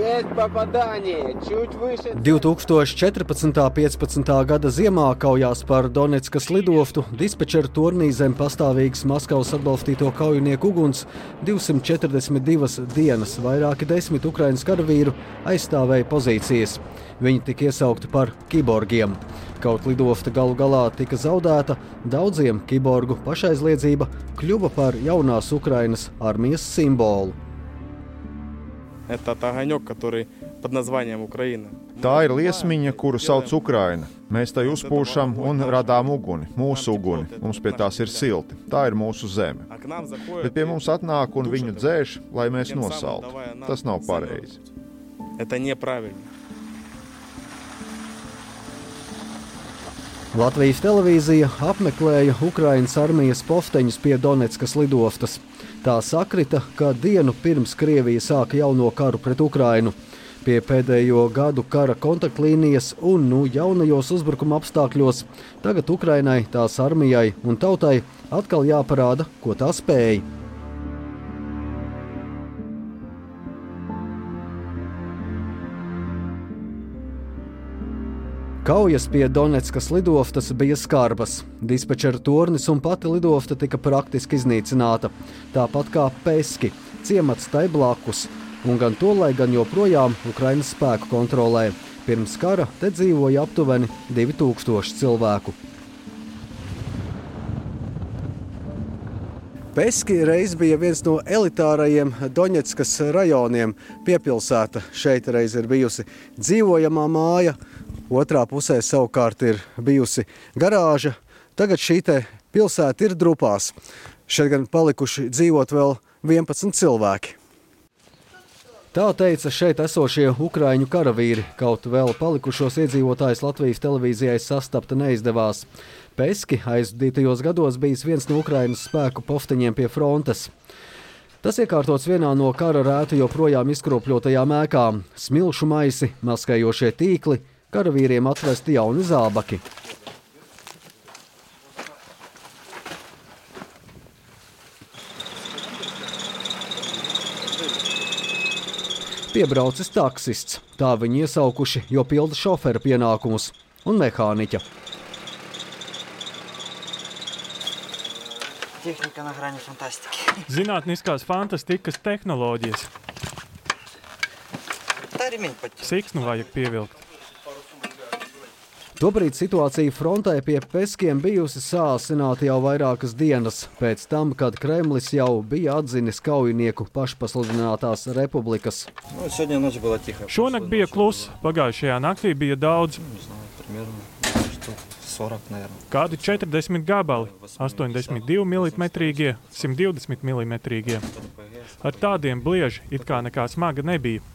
2014.15. gada ziemā kaujās par Doneckas lidoftu dispečera turnī zem pastāvīgas Maskavas atbalstīto kaujinieku uguns 242 dienas. Vairāki 10 Ukrainas karavīru aizstāvēja pozīcijas. Viņi tika iesaukti par kiborgiem. Kaut lidofta galu galā tika zaudēta, daudziem kiborgu pašaizliedzība kļuva par jaunās Ukrainas armijas simbolu. Tā ir liesmiņa, kuru sauc Ukraina. Mēs tai uzpūšam un radām uguni, mūsu uguni. Mums pie tās ir silti. Tā ir mūsu zeme. Bet pie mums atnāk un viņu dzēš, lai mēs nosaltu. Tas nav pareizi. Latvijas televīzija apmeklēja Ukrainas armijas pofteņus pie Doneckas lidostas. Tā sakrita, ka dienu pirms Krievija sāka jauno karu pret Ukrainu. Pie pēdējo gadu kara kontaktlīnijas un jaunajos uzbrukuma apstākļos tagad Ukrainai, tās armijai un tautai atkal jāparāda, ko tā spēj. Kaujas pie Doneckas lidostas bija skarbas. Dispečera tornis un pati lidofta tika praktiski iznīcināta. Tāpat kā Peski, ciemats tai blakus. Un gan tolai, gan joprojām Ukrainas spēku kontrolē. Pirms kara te dzīvoja aptuveni 2000 cilvēku. Peski reiz bija viens no elitārajiem Doņetskas rajoniem. Piepilsēta šeit reiz ir bijusi dzīvojamā māja. Otrā pusē savukārt ir bijusi garāža. Tagad šī te pilsēta ir drupās. Šeit gan palikuši dzīvot vēl 11 cilvēki. Tā teica šeit esošie ukraiņu karavīri, kaut vēl palikušos iedzīvotājus Latvijas televīzijai sastapta neizdevās. Peski aizdītajos gados bijis viens no Ukrainas spēku pofteņiem pie frontes. Tas iekārtots vienā no kara rētu joprojām izkropļotajām ēkām. Smilšu maisi, maskējošie tīkli, karavīriem atvesti jauni zābaki. Piebraucis taksists. Tā viņi iesaukuši, jo pilda šofera pienākumus un mehāniķa. Tehnika na grani fantastiki. Zinātniskās fantastikas tehnoloģijas. Siksnu vajag pievilkt. Tobrīd situācija frontē pie Peskiem bijusi sāsināta jau vairākas dienas, pēc tam, kad Kremlis jau bija atzinis kaujinieku pašpasludinātās republikas. Šonakt bija kluss, pagājušajā naktī bija daudz. Kādi 40 gabali, 82 mm, 120 mm. Ar tādiem blieži it kā nekā smaga nebija.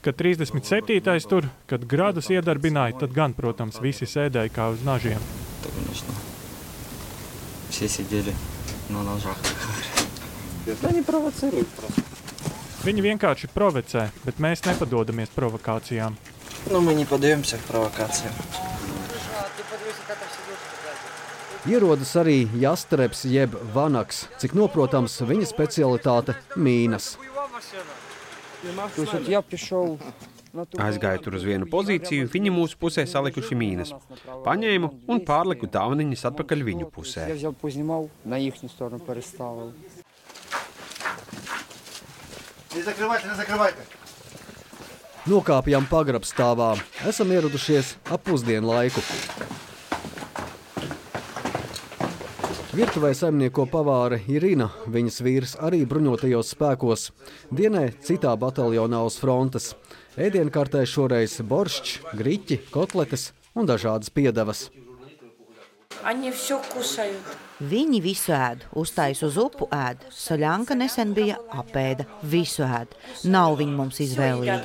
Kad 37. tur, kad gradus iedarbināja, tad gan, protams, visi sēdēja kā uz nažiem. Viņi vienkārši provocē, bet mēs nepadodamies provokācijām. Ierodas arī Jastrebs jeb Vanaks, cik noprotams viņa specialitāte mīnas. Aizgāju tur uz vienu pozīciju, viņi mūsu pusē salikuši mīnas. Paņēmu un pārliku tāvniņas atpakaļ viņu pusē. Nokāpjam pagrabstāvā. Esam ieradušies ap pusdienu laiku. Virtuvē saimnieko pavāre Irina, viņas vīrs arī bruņotajos spēkos. Dienē citā bataljonā uz frontes. Ēdienkartē šoreiz boršķs, griķi, kotletes un dažādas piedevas. Viņi visu ēd, uztais uz upu ēd. Soļanka nesen bija apēda, visu ēd. Nav viņi mums izvēlīgi.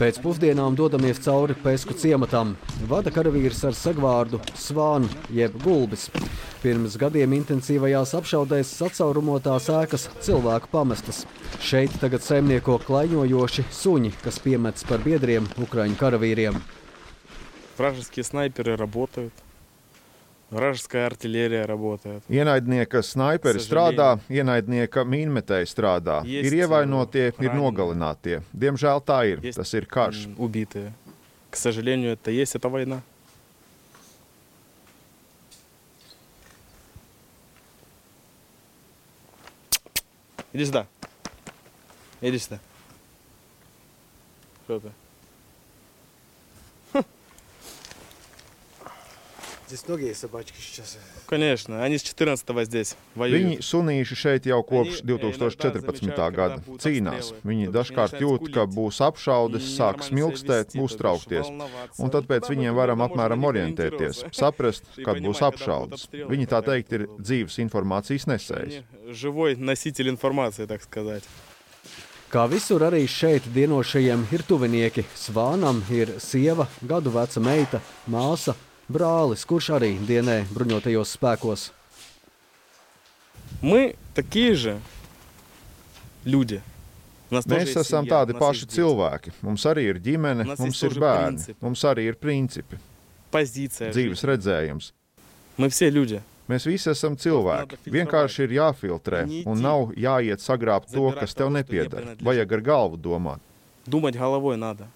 Pēc pusdienām dodamies cauri Pesku ciematam. Vada karavīrs ar sagvārdu Svānu jeb Gulbis. Pirms gadiem intensīvajās apšaudēs sacaurumotās ēkas cilvēku pamestas. Šeit tagad saimnieko klaiņojoši suņi, kas piemets par biedriem ukraiņu karavīriem. Вражеские снайперы работают. Вражеская артиллерия работает. Ienaidnieka snaiperi strādā, ienaidnieka mīnmetēji strādā. Ir ievainotie, ir nogalinātie. Diemžēl tā ir. Tas ir karš. Убитые. К сожалению, это есть, это война. Иди сюда. Иди сюда. Что ты? Здесь многие собачки сейчас. Конечно, они с 14-го здесь Viņi воюют. sunīši šeit jau kopš 2014. gada cīnās. Viņi dažkārt jūt, ka būs apšaudes, sāk smilkstēt, būs traukties. Un tad pēc viņiem varam apmēram orientēties, saprast, kad būs apšaudes. Viņi tā teikt ir dzīves informācijas nesējs. Живой носитель информации, так сказать. Kā visur arī šeit dienošajiem ir tuvinieki. Svānam ir sieva, gadu veca meita, māsa, brālis, kurš arī dienē bruņotajos spēkos. Мы такие же люди. У нас тоже Mēs есть esam семья, tādi у нас paši есть дети. cilvēki. Mums arī ir ģimene, Mums mums ir ir bērni, principi. mums arī ir principi, Позиция. dzīves redzējums. Мы все люди. Mēs visi esam cilvēki. Vienkārši ir jāfiltrē un nav jāiet sagrābt to, kas tev nepieder. Vajag ar galvu domāt. Думать головой надо.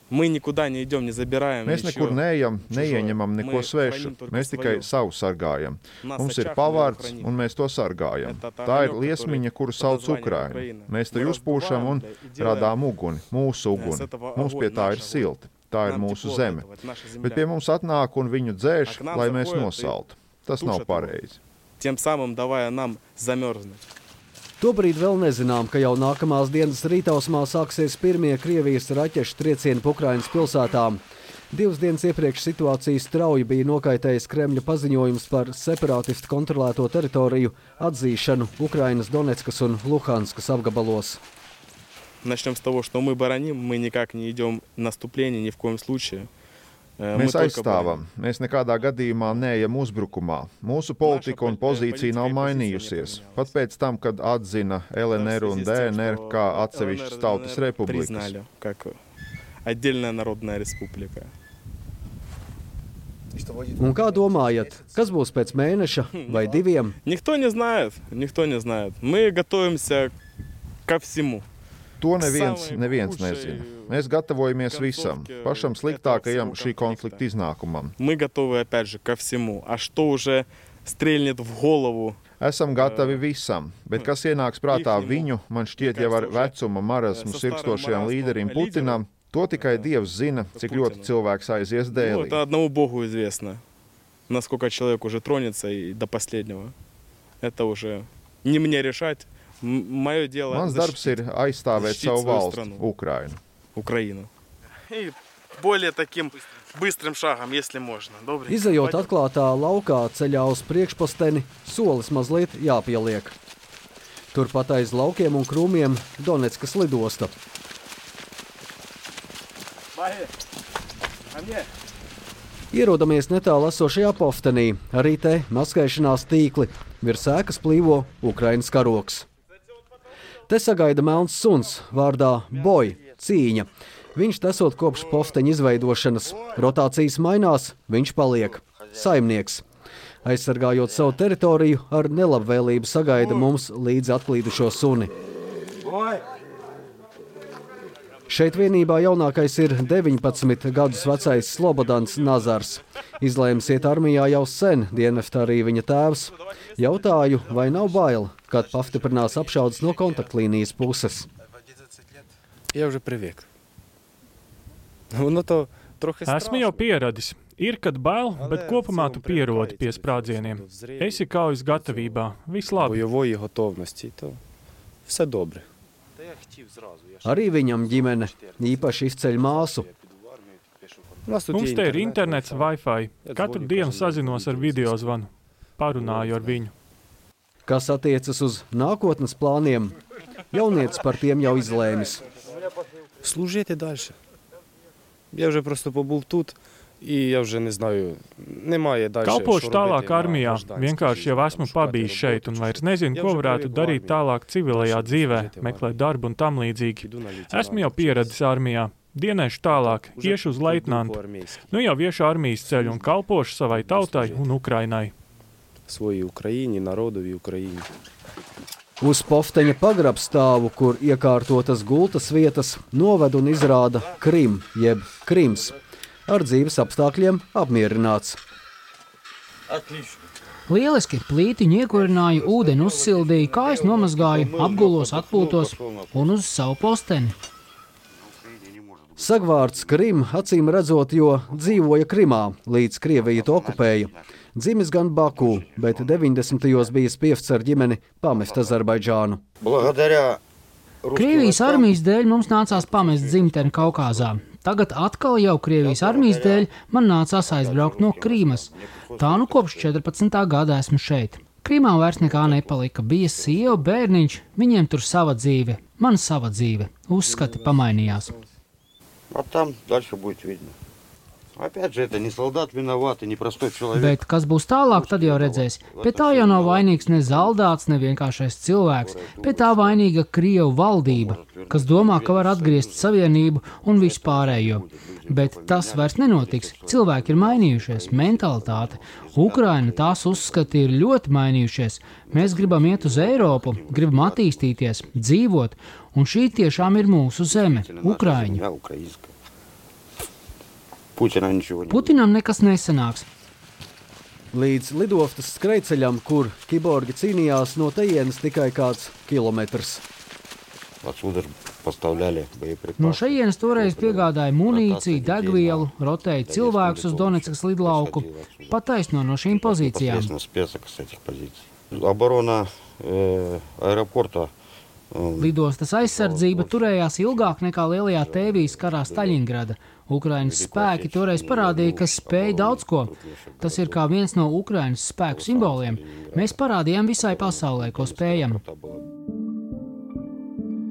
Мы никуда не идем, не забираем Mēs ничего. nekur neejam, neieņemam neko Мы svešu. храним только Mēs tikai своё. savu sargājam. Нас Mums ir очаг мы pavārds, храним. un mēs to sargājam. Это та Tā ir огонёк, liesmiņa, kuru который sauc под названием Ukraina. Украина. Mēs to Мы uzpūšam un раздуваем, и делаем radām uguni, mūsu с uguni. этого Mums pie огонь, tā ir наш огонь. silti. Tā ir Нам mūsu тепло от zeme. этого, это наша земля. Bet pie mums atnāk un viņu dzēš, Ak nam lai mēs zahoja, nosaltu. Tas tūšat nav to. pareizi. Тем самым давая нам замерзнуть. Tobrīd vēl nezinām, ka jau nākamās dienas rītausmā sāksies pirmie Krievijas raķešu triecieni pa Ukrainas pilsētām. 2 dienas iepriekš situācijas strauji bija nokaitējis Kremļa paziņojums par separātistu kontrolēto teritoriju atzīšanu Ukrainas Donetskas un Luhanskas apgabalos. Начнем с того, что мы бароним, мы никак не идем в наступление, ни в коем случае. Mēs aizstāvam. Mēs nekādā gadījumā neejam uzbrukumā. Mūsu politika un pozīcija nav mainījusies. Pat pēc tam, kad atzina LNR un DNR kā atsevišķas tautas republikas. Признали, как отдельная народная республика. Un kā domājat, kas būs pēc mēneša vai 2? Никто не знает, никто не знает. Мы готовимся ко всему. To neviens nezina. Mēs gatavojamies visam, pašam sliktākajam šī konflikta iznākumam. Мы готовы, опять же, ко всему. А что уже стрельнет в голову? Esam gatavi visam, bet kas ienāks prātā viņu, man šķiet jau ar vecuma marazmu sirkstošajam līderim Putinam, to tikai Dievs zina, cik ļoti cilvēks aizies Ну, dēlī. это одному Богу известно. Насколько человек уже тронется и до последнего. Это уже не мне решать. Мое дело Mans darbs ir aizstāvēt защитить savu свою valsti, страну. Ukrainu. Украину. И более таким быстрым шагом, если можно. Добрый. Izejot atklātā laukā ceļā uz priekšposteni, solis mazliet jāpieliek. Turpat aiz laukiem un krūmiem Donetskas lidosta. Ierodamies netālu esošajā poftenī, arī te maskēšanās tīkli, virs ēkas plīvo Ukrainas karoks. Te sagaida melns suns vārdā Boj, cīņa. Viņš esot kopš pofteņa izveidošanas. Rotācijas mainās, viņš paliek. Saimnieks. Aizsargājot savu teritoriju, ar nelabvēlību sagaida mums līdz atklīdušo suni. Šeit vienībā jaunākais ir 19 gadus vecais Slobodans Nazars. Izlēmis iet armijā jau sen, dienestā arī viņa tēvs. Jautāju, vai nav bail, kad pastiprinās apšaudes no kontaktlīnijas puses. Я вже привик. Воно то трохи Esmu jau pieradis. Ir, kad bail, bet kopumā tu pierodi pie sprādzieniem. Esi kaujas gatavībā. Viss labi. бойової готовності, то все добре. Arī viņam ģimene īpaši izceļ māsu. Mums te ir internets, Wi-Fi. Katru dienu sazinos ar video zvanu. Parunāju ar viņu. Kas attiecas uz nākotnes plāniem, jaunietis par tiem jau izlēmis. Служити далі. Я вже просто побув тут, і я вже не знаю, немає далі. Kalpošu tālāk armijā. Vienkārši jau esmu pabijis šeit un vairs nezinu, ko varētu darīt tālāk civilajā dzīvē, meklēt darbu un tam līdzīgi. Esmu jau pieradis armijā. Dienēšu tālāk, iešu uz leitnantu. Nu jau viešu armijas ceļu un kalpošu savai tautai un Ukrainai. Своїй Україні, народові Україні. Uz Pofteņa pagrabstāvu, kur iekārtotas gultas vietas, noved un izrāda Krim, jeb Krims, ar dzīves apstākļiem apmierināts. Lieliski, plītiņu iekurināju, ūdeni uzsildīju, kājas nomazgāju, apgulos, atpūtos un uz savu posteni. Sagvārds Krim acīm redzot, jo dzīvoja Krimā, līdz Krievija to okupēja. Dzimis gan Baku, bet 90. bijis pievsts ar ģimeni pamest Azerbaidžānu. Krievijas armijas dēļ mums nācās pamest dzimteni Kaukāzā. Tagad atkal jau Krievijas armijas dēļ man nācās aizbraukt no Krīmas. Tā nu kopš 14. gada esmu šeit. Krīmā vairs nekā nepalika. Bija sieva, bērniņš, viņiem tur sava dzīve, man sava dzīve. Uzskati pamainījās. Bet kas būs tālāk, tad jau redzēs. Pie tā jau nav vainīgs ne zaldāts, ne vienkāršais cilvēks. Pie tā vainīga Krievu valdība, kas domā, ka var atgriezt savienību un vispārējo. Bet tas vairs nenotiks. Cilvēki ir mainījušies, mentalitāte. Ukraina, tās uzskati ir ļoti mainījušies. Mēs gribam iet uz Eiropu, gribam attīstīties, dzīvot, un šī tiešām ir mūsu zeme, Ukraiņa. Putinam nekas nesanāks. Līdz lidostas skrejceļam, kur kiborgi cīnījās, no tejienes tikai kāds kilometrs. No šejienes toreiz piegādāja munīciju, degvielu, rotēja cilvēkus uz Doneckas lidlauku, pataisno no šīm pozīcijām. Lidostas aizsardzība turējās ilgāk nekā lielajā tēvijas karā Staļingrada. Ukrainas spēki toreiz parādīja, ka spēj daudz ko. Tas ir kā viens no Ukrainas spēku simboliem. Mēs parādījām visai pasaulē, ko spējam.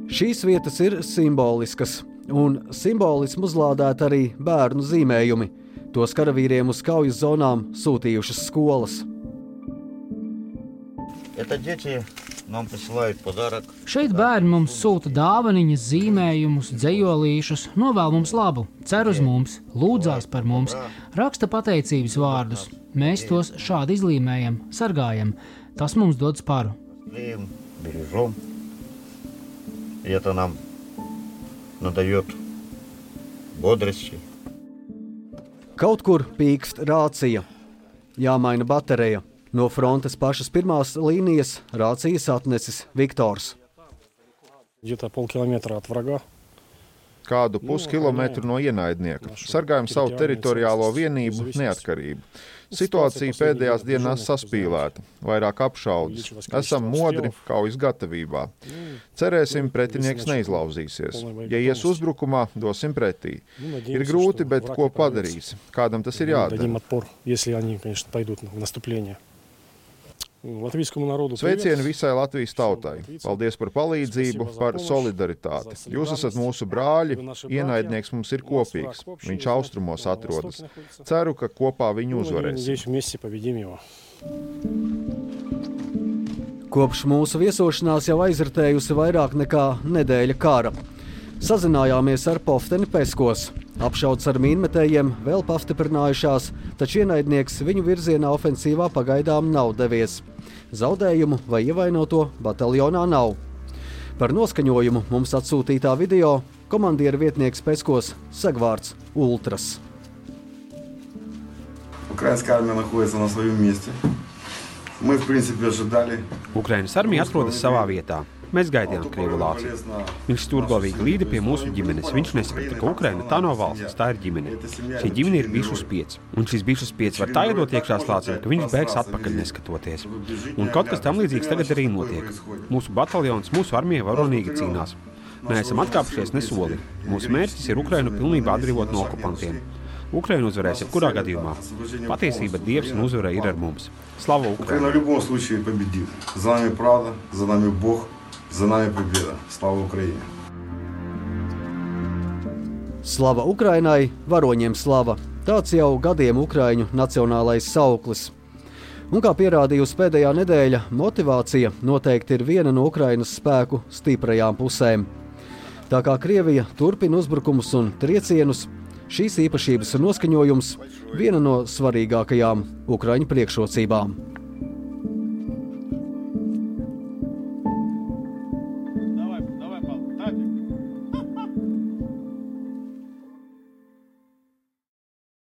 Šīs vietas ir simboliskas, un simbolismu uzlādēt arī bērnu zīmējumi. Tos karavīriem uz kaujas zonām sūtījušas skolas. Šeit bērni mums sūta dāvaniņas, zīmējumus, dzejolīšus, novēl mums labu, cer uz mums, lūdzās par mums, raksta pateicības vārdus. Mēs tos šādi izlīmējam, sargājam. Tas mums dod sparu. Kaut kur pīkst rācija. Jāmaina baterija. No frontes pašas pirmās līnijas rācijas atnesis Viktors. Kādu puskilometru no ienaidnieka. Sargājam savu teritoriālo vienību, neatkarību. Situācija pēdējās dienās saspīlēta, vairāk apšaudas. Esam modri, kaujas gatavībā. Cerēsim, pretinieks neizlauzīsies. Ja ies uzbrukumā, dosim pretī. Ir grūti, bet ko padarīs? Kādam tas ir jādara? Sveicieni visai Latvijas tautai. Paldies par palīdzību, par solidaritāti. Jūs esat mūsu brāļi, ienaidnieks mums ir kopīgs. Viņš austrumos atrodas. Ceru, ka kopā viņu uzvarēsim. Kopš mūsu viesošanās jau aizritējusi vairāk nekā nedēļa kara. Sazinājāmies ar Pofteni Peskos. Apšaudas ar mīnmetējiem vēl pastiprinājušās, taču ienaidnieks viņu virzienā ofensīvā pagaidām nav devies. Zaudējumu vai ievainoto bataljonā nav. Par noskaņojumu mums atsūtītā video komandiera vietnieks Peskos Sagvārds Ultras. Ukrainas armija atrodas savā vietā. Mēs gaidījām Krievu lāci. Viņš stūrgalvīgi līda pie mūsu ģimenes. Viņš nesaprata, ka Ukraina tā nav valsts, tā ir ģimene. Šī ģimene ir bišu spieds. Un šis bišu spieds var tā iedot iekšā slācim, ka viņš bēgs atpakaļ neskatoties. Un kaut kas tam līdzīgs tagad arī notiek. Mūsu bataljons, mūsu armija varonīgi cīnās. Neesam atkāpušies ne soli. Mūsu mērķis ir Ukrainu pilnībā atbrīvot no okupantiem. Ukraina uzvarēs jebkurā gadījumā. Patiesība, Dievs un uzvara ir ar mums. Slava Ukraina! За нами победа. Слава Украине! Slava Ukrainai, varoņiem slava. Tāds jau gadiem Ukraiņu nacionālais sauklis. Un kā pierādījusi pēdējā nedēļa, motivācija noteikti ir viena no Ukrainas spēku stiprajām pusēm. Tā kā Krievija turpina uzbrukumus un triecienus, šīs īpašības un noskaņojums viena no svarīgākajām Ukraiņu priekšrocībām.